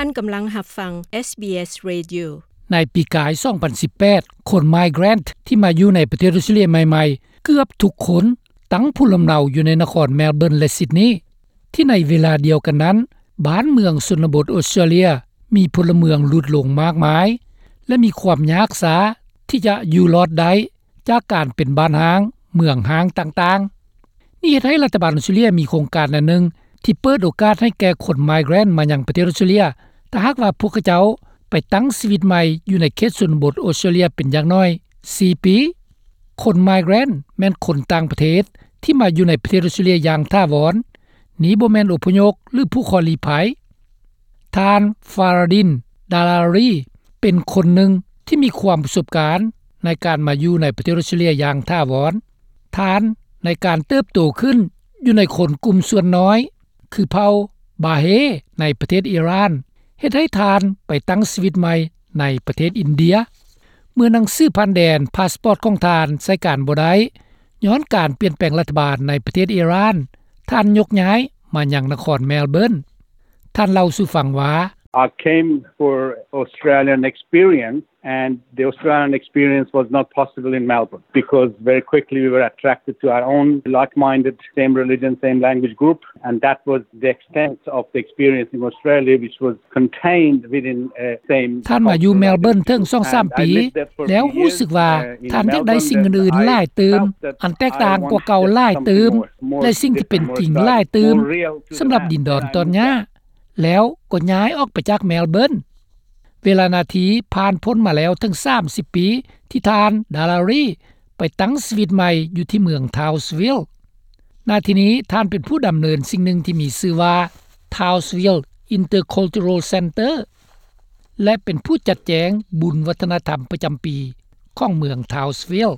ນກຳລັງຮັບຟັງ ເອສບີເອສ Radio. ໃນປີກາຍ ສອງພັນສິບແປດ ຄົນ migrant ທີ່ມາຢູ່ໃນປະເທດອອສເຕຣເລັຽໃໝ່ໆ ເກືອບທຸກຄົນ ຕັ້ງພູມລຳເນົາຢູ່ໃນນະຄອນ Melbourne ແລະ Sydney. ທີ່ໃນເວລາດຽວກັນນັ້ນ ບ້ານເມືອງຊົນນະບົດອອສເຕຣເລັຽ ມີພົນລະເມືອງຫຼຸດລົງມາກມາຍ ແລະ ມີຄວາມຍາກຊ້າທີ່ຈະຢູ່ລອດໄດ້ ຈາກການເປັນບ້ານຮ້າງ, ເມືອງຮ້າງຕ່າງໆ. ນີ້ເຮັດໃຫ້ລັດຖະບານອອສເຕຣເລັຽມີໂຄງການອັນໜຶ່ງ ທີ່ເປີດໂອກາດໃຫ້ແກ່ຄົນ migrant ມາຍັງປະເທດອອສເຕຣເລັຽ ຖ້າຫາກວ່າພວກເຂົາເຈົ້າໄປຕັ້ງຊີວິດໃໝ່ຢູ່ໃນເຂດຊົນນະບົດອອສເຕຣເລັຽເປັນຢ່າງໜ້ອຍສີ່ປີ. ຄົນ migrant ແມ່ນຄົນຕ່າງປະເທດທີ່ມາຢູ່ໃນປະເທດອອສເຕຣເລັຽຢ່າງຖາວອນ. ນີ້ບໍ່ແມ່ນອົບພະຍົບ ຫຼື ຜູ້ຂໍລີ້ໄພ. ທ່ານ Faradin Dalari ເປັນຄົນໜຶ່ງທີ່ມີຄວາມປະສົບການໃນການມາຢູ່ໃນປະເທດອອສເຕຣເລັຽຢ່າງຖາວອນ. ທ່ານໃນການເຕີບໂຕຂຶ້ນຢູ່ໃນຄົນກຸ່ມສ່ວນນ້ອຍ ຄືເຜົ່າ Baha'i ໃນປະເທດອີຣານ ເຮັດໃຫ້ທ່ານໄປຕັ້ງຊີວິດໃໝ່ໃນປະເທດອິນເດຍ. ເມື່ອໜັງສືຜ່ານແດນ ພາສປອດຂອງທ່ານໃຊ້ການບໍ່ໄດ້ ຍ້ອນການປ່ຽນແປງລັດຖະບານໃນປະເທດອີຣານ, ທ່ານຍົກຍ້າຍມາຍັງນະຄອນ Melbourne. ທ່ານເລົ່າສູ່ຟັງວ່າ I came for Australian experience and the Australian experience was not possible in Melbourne because very quickly we were attracted to our own like-minded, same religion, same language group, and that was the extent of the experience in Australia, which was contained within a same ທ່ານມາຢູ່ Melbourne ເຖິງສອງສາມປີ ແລ້ວຮູ້ສຶກວ່າທ່ານຢາກໄດ້ສິ່ງອື່ນໆຫຼາຍຕື່ມ ອັນແຕກຕ່າງກວ່າເກົ່າຫຼາຍຕື່ມ ແລະ ສິ່ງທີ່ເປັນຈິງຫຼາຍຕື່ມ ສຳລັບດິນດອນຕອນຫຍ້າ ແລ້ວກໍຍ້າຍອອກໄປຈາກ Melbourne. ເວລານາທີຜ່ານພົ້ນມາແລ້ວເຖິງສາມສິບປີ ທີ່ທ່ານ Dalari ໄປຕັ້ງຊີວິດໃໝ່ຢູ່ທີ່ເມືອງ Townsville. ນາທີນີ້ທ່ານເປັນຜູ້ດຳເນີນສິ່ງໜຶ່ງທີ່ມີຊື່ວ່າ Townsville Intercultural Centre ແລະ ເປັນຜູ້ຈັດແຈງບຸນວັດທະນະທຳປະຈຳປີຂອງເມືອງ Townsville.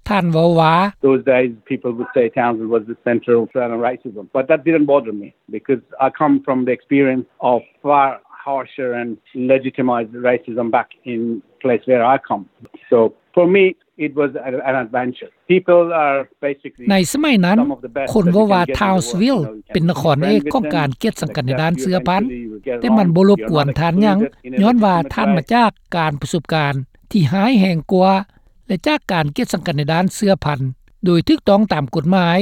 ທ່ານເວົ້າວ່າ Those days people would say Townsville was the centre of Australian racism, but that didn't bother me because I come from the experience of far harsher and legitimized racism back in place where I come. So for me, it was an adventure. People are basically ໃນສະໄໝນັ້ນ ຄົນເວົ້າວ່າ Townsville ເປັນນະຄອນເອກຂອງການກຽດສັງກັດໃນດ້ານເຊື້ອພັນ, ແຕ່ມັນບໍ່ລົບກວນທ່ານຫຍັງ, ຍ້ອນວ່າທ່ານມາຈາກການປະສົບການທີ່ຮ້າຍແຮງກວ່າ ແລະ ຈາກການກຽດສັງກັດໃນດ້ານເຊື້ອພັນໂດຍຖືກຕ້ອງຕາມກົດໝາຍ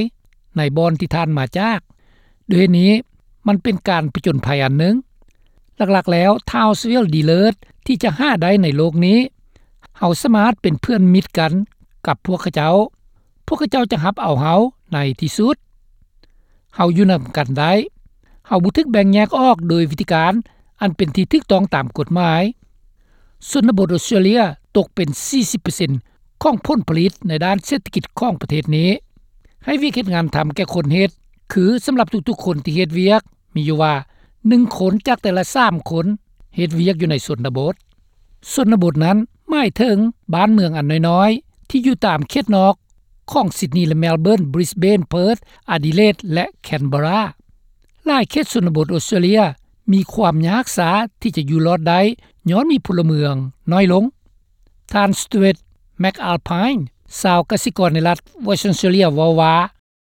ໃນບ່ອນທີ່ທ່ານມາຈາກ. ດ້ວຍເຫດນີ້ ມັນເປັນການຜະຈົນໄພອັນໜຶ່ງ. ຫຼັກໆແລ້ວ Townsville ດີເລີດທີ່ຈະຫາໄດ້ໃນໂລກນີ້. ເຮົາສາມາດເປັນເພື່ອນມິດກັນກັບພວກເຂົາເຈົ້າ. ພວກເຂົາເຈົ້າຈະຮັບເອົາເຮົາໃນທີ່ສຸດ. ເຮົາຢູ່ນຳກັນໄດ້. ເຮົາບໍ່ຖືກແບ່ງແຍກອອກໂດຍວິທີການອັນເປັນທີ່ຖືກຕ້ອງຕາມກົດໝາຍ. ຊົນນະບົດອອສເຕຣເລັຽຕົກເປັນສີ່ສິບເປີເຊັນຂອງຜົນຜະລິດໃນດ້ານເສດຖະກິດຂອງປະເທດນີ້. ໃຫ້ວຽກເຮັດງານທຳແກ່ຄົນເຮັດ ຄືສຳລັບທຸກໆຄົນທີ່ເຮັດວຽກ ມີຢູ່ວ່າໜຶ່ງຄົນຈາກແຕ່ລະສາມຄົນເຮັດວຽກຢູ່ໃນຊົນນະບົດ. ຊົນນະບົດນັ້ນໝາຍເຖິງບ້ານເມືອງອັນນ້ອຍໆ ທີ່ຢູ່ຕາມເຂດນອກຂອງ Sydney ແລະ Melbourne, Brisbane, Perth, Adelaide ແລະ Canberra. ຫຼາຍເຂດຊົນນະບົດອອສເຕຣເລັຽມີຄວາມຍາກຊ້າທີ່ຈະຢູ່ລອດໄດ້ ຍ້ອນມີພົນລະເມືອງນ້ອຍລົງ. ທ່ານ Stuart McAlpine ຊາວກະສິກອນໃນລັດ Western Australia ເວົ້າວ່າ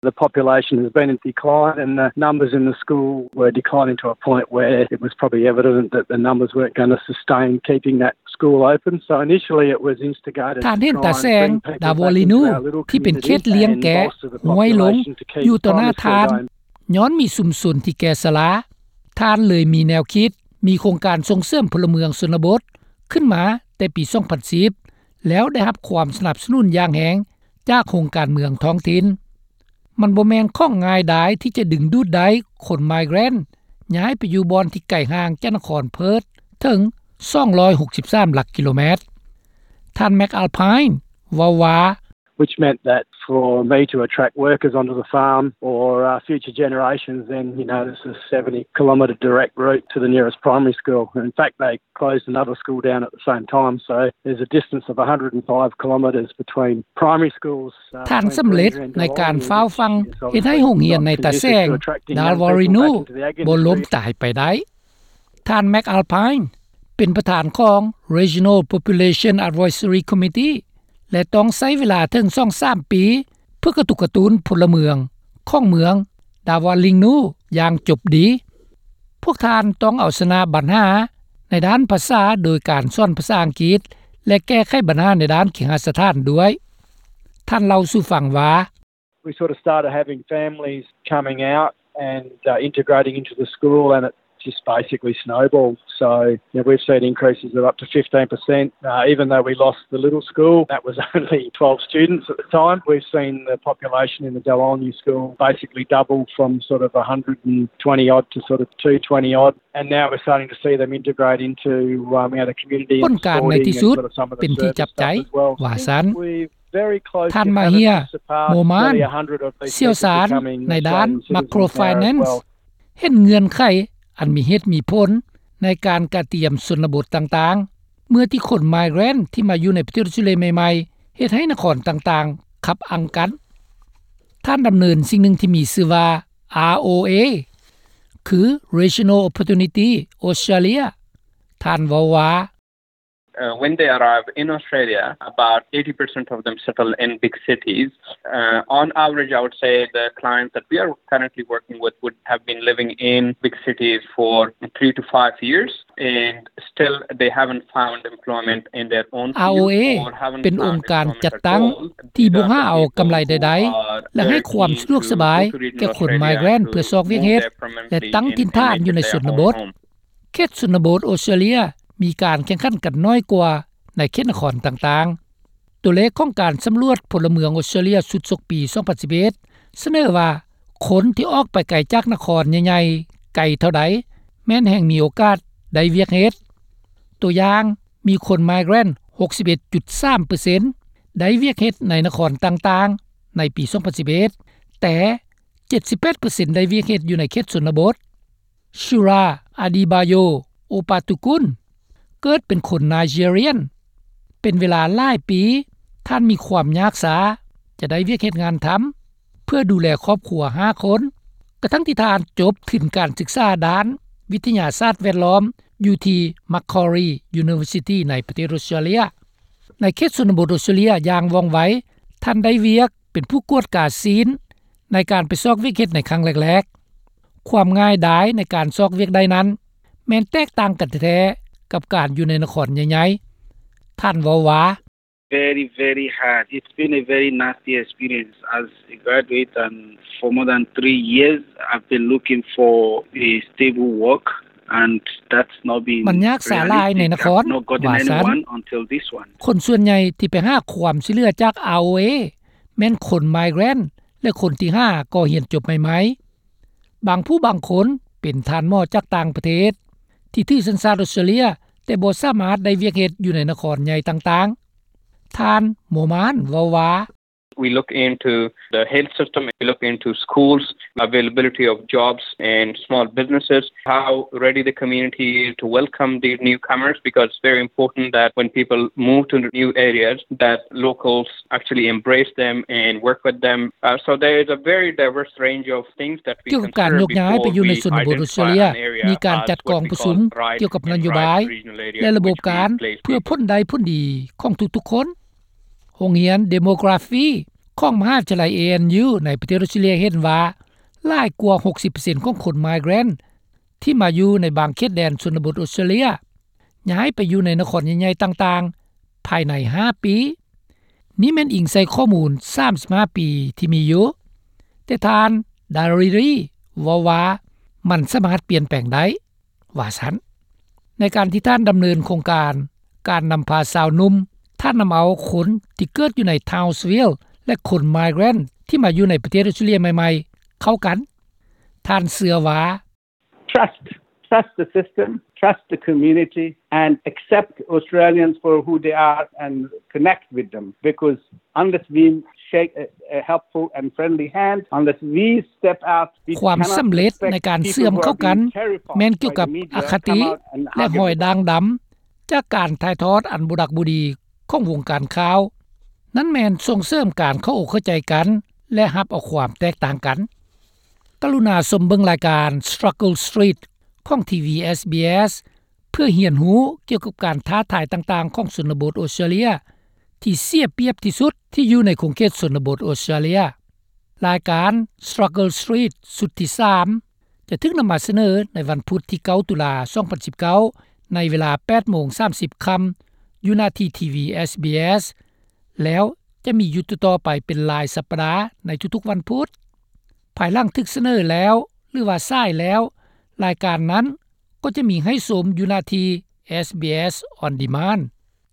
The population has been in decline and the numbers in the school were declining to a point where it was probably evident that the numbers weren't gonna sustain keeping that school open. So initially it was instigated ທ່ານເຫັນຕາແສງ ດາວໍລີນູ ທີ່ເປັນເຂດລ້ຽງແກະ ຫ້ວຍລົງຢູ່ຕໍ່ໜ້າທ່ານ ຍ້ອນມີຊຸມຊົນທີ່ແກ່ຊະລາ. ທ່ານເລີຍມີແນວຄິດ ມີໂຄງການສົ່ງເສີມພົນລະເມືອງຊົນນະບົດຂຶ້ນມາແຕ່ປີສອງພັນສິບ ແລ້ວໄດ້ຮັບຄວາມສະໜັບສະໜູນຢ່າງແຮງຈາກໂຮງການເມືອງທ້ອງຖິ່ນ. ມັນບໍ່ແມ່ນຂອງງ່າຍດາຍທີ່ຈະດຶງດູດໄດ້ຄົນ migrant ຍ້າຍໄປຢູ່ບ່ອນທີ່ໄກຫ່າງຈາກນະຄອນ Perth ເຖິງສອງຮ້ອຍຫົກສິບສາມຫຼັກກິໂລແມັດ. ທ່ານ McAlpine ເວົ້າວ່າ Which meant that for me to attract workers onto the farm or, uh, future generations, then, you know, this is seventy kilometre direct route to the nearest primary school. In fact, they closed another school down at the same time, so there's a distance of a hundred and five kilometres between primary schools. ທ່ານສຳເລັດໃນການຟ້າວຟັ່ງເຮັດໃຫ້ໂຮງຮຽນໃນຕາແສງ ດາວໍລີນູ ບໍ່ລົ້ມຕາຍໄປໄດ້. ທ່ານ McAlpine ເປັນປະທານຂອງ Regional Population Advisory Committee ແລະ ຕ້ອງໃຊ້ເວລາເຖິງສອງສາມປີ ເພື່ອກະຕຸກກະຕຸ້ນພົນລະເມືອງຂອງເມືອງ ດາວໍລີນູ ຢ່າງຈົບດີ. ພວກທ່ານຕ້ອງເອົາຊະນະບັນຫາໃນດ້ານພາສາໂດຍການສອນພາສາອັງກິດ ແລະ ແກ້ໄຂບັນຫາໃນດ້ານເຄຫະສະຖານດ້ວຍ. ທ່ານເລົ່າສູ່ຟັງວ່າ We sort of started having families coming out and, uh, integrating into the school, and it just basically snowballed. So, you know, we've seen increases of up to fifteen percent, uh, even though we lost the little school. That was only twelve students at the time. We've seen the population in the Dawulni school basically double from sort of a hundred and twenty odd to sort of two twenty odd. And now we're starting to see them integrate into, um, you know, the community and sporting and sort of some of the service stuff as well. ຜົນການໃນທີ່ສຸດເປັນທີ່ຈັບໃຈ ວ່າຊັ້ນ. ທ່ານມາເຮຍ ໂມມານ ຊ່ຽວຊານໃນດ້ານ Macro Finance ເຫັນເງື່ອນໄຂອັນມີເຫດມີຜົນໃນການກະຕຽມຊົນນະບົດຕ່າງໆ ເມື່ອທີ່ຄົນ Migrant ທີ່ມາຢູ່ໃນປະເທດອອສເຕຣເລຍໃໝ່ໆ ເຮັດໃຫ້ນະຄອນຕ່າງໆ ຂັບອັ່ງກັນ. ທ່ານດຳເນີນສິ່ງໜຶ່ງທີ່ມີຊື່ວ່າ ROA ຄື Regional Opportunity Australia. ທ່ານເວົ້າວ່າ Uh, when they arrive in Australia, about eighty percent of them settle in big cities. Uh, on average, I would say the clients that we are currently working with would have been living in big cities for three to five years, and still they haven't found employment in their own field or haven't found employment at all. These are the people who are very keen to relocate to Australia to move their permanently in immediate after arriving. ROA ເປັນອົງການຈັດຕັ້ງທີ່ບໍ່ຫາເອົາກຳໄລໃດໆ ແລະ ໃຫ້ຄວາມຊ່ວຍເຫຼືອສະບາຍແກ່ຄົນ Migrant ເພື່ອຊອກວຽກເຮັດ ແລະ ຕັ້ງຖິ່ນຖານຢູ່ໃນຊົນນະບົດ. ເຂດຊົນນະບົດອອສເຕຣເລຍມີການແຂ່ງຂັນກັນໜ້ອຍກວ່າໃນເຂດນະຄອນຕ່າງໆ. ຕົວເລກຂອງການສຳຫຼວດພົນລະເມືອງອອສເຕຣເລຍຊຸດສົກປີສອງພັນສິບເອັດ ສະເໜີວ່າ ຄົນທີ່ອອກໄປໄກຈາກນະຄອນໃຫຍ່ໆ ໄກເທົ່າໃດ ແມ່ນແຮ່ງມີໂອກາດໄດ້ວຽກເຮັດ. ຕົວຢ່າງ, ມີຄົນ Migrant ຫົກສິບເອັດຈຸດສາມເປີເຊັນ ໄດ້ວຽກເຮັດໃນນະຄອນຕ່າງໆ ໃນປີສອງພັນສິບເອັດ ແຕ່ ເຈັດສິບແປດເປີເຊັນ ໄດ້ວຽກເຮັດຢູ່ໃນເຂດຊົນນະບົດ. Shura Adebayo Opatukun ເກີດເປັນຄົນ Nigerian. ເປັນເວລາຫຼາຍປີ, ທ່ານມີຄວາມຍາກຊ້າຈະໄດ້ວຽກເຮັດງານທຳ ເພື່ອດູແລຄອບຄົວຫ້າຄົນ, ກະທັ່ງທີ່ທ່ານຈົບທຶນການສຶກສາດ້ານວິທະຍາສາດແວດລ້ອມຢູ່ທີ່ Macquarie University ໃນປະເທດອອສເຕຣເລຍ. ໃນເຂດຊົນນະບົດອອສເຕຣເລຍຢ່າງວ່ອງໄວ, ທ່ານໄດ້ວຽກເປັນຜູ້ກວດກາຊີ້ນໃນການໄປຊອກວຽກເຮັດໃນຄັ້ງແລກໆ. ຄວາມງ່າຍດາຍໃນການຊອກວຽກໄດ້ນັ້ນ ແມ່ນແຕກຕ່າງກັນແທ້ໆ ກັບການຢູ່ໃນນະຄອນໃຫຍ່ໆ. ທ່ານເວົ້າວ່າ Very, very hard. It's been a very nasty experience. As a graduate and for more than three years, I've been looking for a stable work, and that's not been realistic. ມັນຍາກສາຫຼາຍໃນນະຄອນ I've not gotten anyone until this one. ວ່າຊັ້ນ. ຄົນສ່ວນໃຫຍ່ທີ່ໄປຫາຄວາມຊ່ວຍເຫຼືອຈາກ ROA ແມ່ນຄົນ Migrant ແລະ ຄົນທີ່ຫາກໍຮຽນຈົບໃໝ່ໆ. ບາງຜູ້ບາງຄົນເປັນທ່ານໝໍຈາກຕ່າງປະເທດ ທີ່ຖືສັນຊາດອອສເຕຣເລຍ ແຕ່ບໍ່ສາມາດໄດ້ວຽກເຮັດຢູ່ໃນນະຄອນໃຫຍ່ຕ່າງໆ. ທ່ານ ໂມມານ ເວົ້າວ່າ We look into the health system, we look into schools, availability of jobs and small businesses, how ready the community is to welcome these newcomers, because it's very important that when people move to new areas, that locals actually embrace them and work with them. Uh, so there is a very diverse range of things that we consider before we identify an area as worthy for relocation. ກ່ຽວກັບການໂຍກຍ້າຍໄປຢູ່ໃນຊົນນະບົດອອສເຕຣເລຍ ມີການຈັດກອງປະຊຸມກ່ຽວກັບນະໂຍບາຍ ແລະ ລະບົບການ ເພື່ອຜົນໄດ້ຜົນດີຂອງທຸກໆຄົນ. ໂຮງຮຽນ Demography ຂອງມະຫາວິທະຍາໄລ ANU ໃນປະເທດອອສເຕຣເລຍເຫັນວ່າ ຫຼາຍກວ່າຫົກສິບເປີເຊັນຂອງຄົນ Migrant ທີ່ມາຢູ່ໃນບາງເຂດແດນຊົນນະບົດອອສເຕຣເລຍ ຍ້າຍໄປຢູ່ໃນນະຄອນໃຫຍ່ໆຕ່າງໆ ພາຍໃນຫ້າປີ. ນີ້ແມ່ນອີງໃສ່ຂໍ້ມູນສາມສິບຫ້າປີທີ່ມີຢູ່, ແຕ່ທ່ານ Dariri ເວົ້າວ່າ ມັນສາມາດປ່ຽນແປງໄດ້ ວ່າຊັ້ນ. ໃນການທີ່ທ່ານດຳເນີນໂຄງການ ການນຳພາຊາວໜຸ່ມ, ທ່ານນຳເອົາຄົນທີ່ເກີດຢູ່ໃນ Townsville ແລະ ຄົນ Migrant ທີ່ມາຢູ່ໃນປະເທດອອສເຕຣເລຍໃໝ່ໆ ເຂົ້າກັນ. ທ່ານເຊື່ອວ່າ Trust. Trust the system, trust the community, and accept Australians for who they are and connect with them. Because unless we shake a, a helpful and friendly hand, unless we step out, we cannot expect people who have been terrified by the media to come out and argue. ຄວາມສຳເລັດໃນການເຊື່ອມເຂົ້າກັນ ແມ່ນກ່ຽວກັບອະຄະຕິ ແລະ ຮອຍດ່າງດຳ ຈາກການຖ່າຍທອດອັນບໍ່ດັກບໍ່ດີຂອງວົງການຂ່າວ. ນັ້ນແມ່ນສົ່ງເສີມການເຂົ້າອົກເຂົ້າໃຈກັນ ແລະ ຮັບເອົາຄວາມແຕກຕ່າງກັນ. ກະລຸນາຊົມເບິ່ງລາຍການ Struggle Street ຂອງ ທີວີ SBS ເພື່ອຮຽນຮູ້ກ່ຽວກັບການທ້າທາຍຕ່າງໆຂອງຊົນນະບົດອອສເຕຣເລຍ ທີ່ເສຍປຽບທີ່ສຸດທີ່ຢູ່ໃນຂົງເຂດຊົນນະບົດອອສເຕຣເລຍ. ລາຍການ Struggle Street ຊຸດທີສາມ ຈະຖືກນຳມາສະເໜີໃນວັນພຸດທີ ເກົ້າ ຕຸລາ ສອງພັນສິບເກົ້າ ໃນເວລາ ແປດໂມງ ສາມສິບຄ່ຳ ຢູ່ໜ້າທີ່ ທີວີ ເອສບີເອສ ແລ້ວຈະມີຢູ່ຕໍ່ໆໄປເປັນລາຍສັບປະດາໃນທຸກໆວັນພຸດ. ພາຍຫຼັງຖືກສະເໜີແລ້ວ ຫຼືວ່າສາຍແລ້ວ ລາຍການນັ້ນກໍຈະມີໃຫ້ຊົມຢູ່ໜ້າທີ່ SBS On Demand.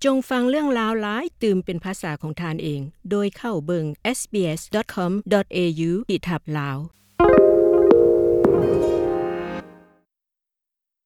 ຈົ່ງຟັງເລື່ອງລາວຫຼາຍຕື່ມເປັນພາສາຂອງທ່ານເອງ ໂດຍເຂົ້າເບິ່ງ SBS.com.au/lao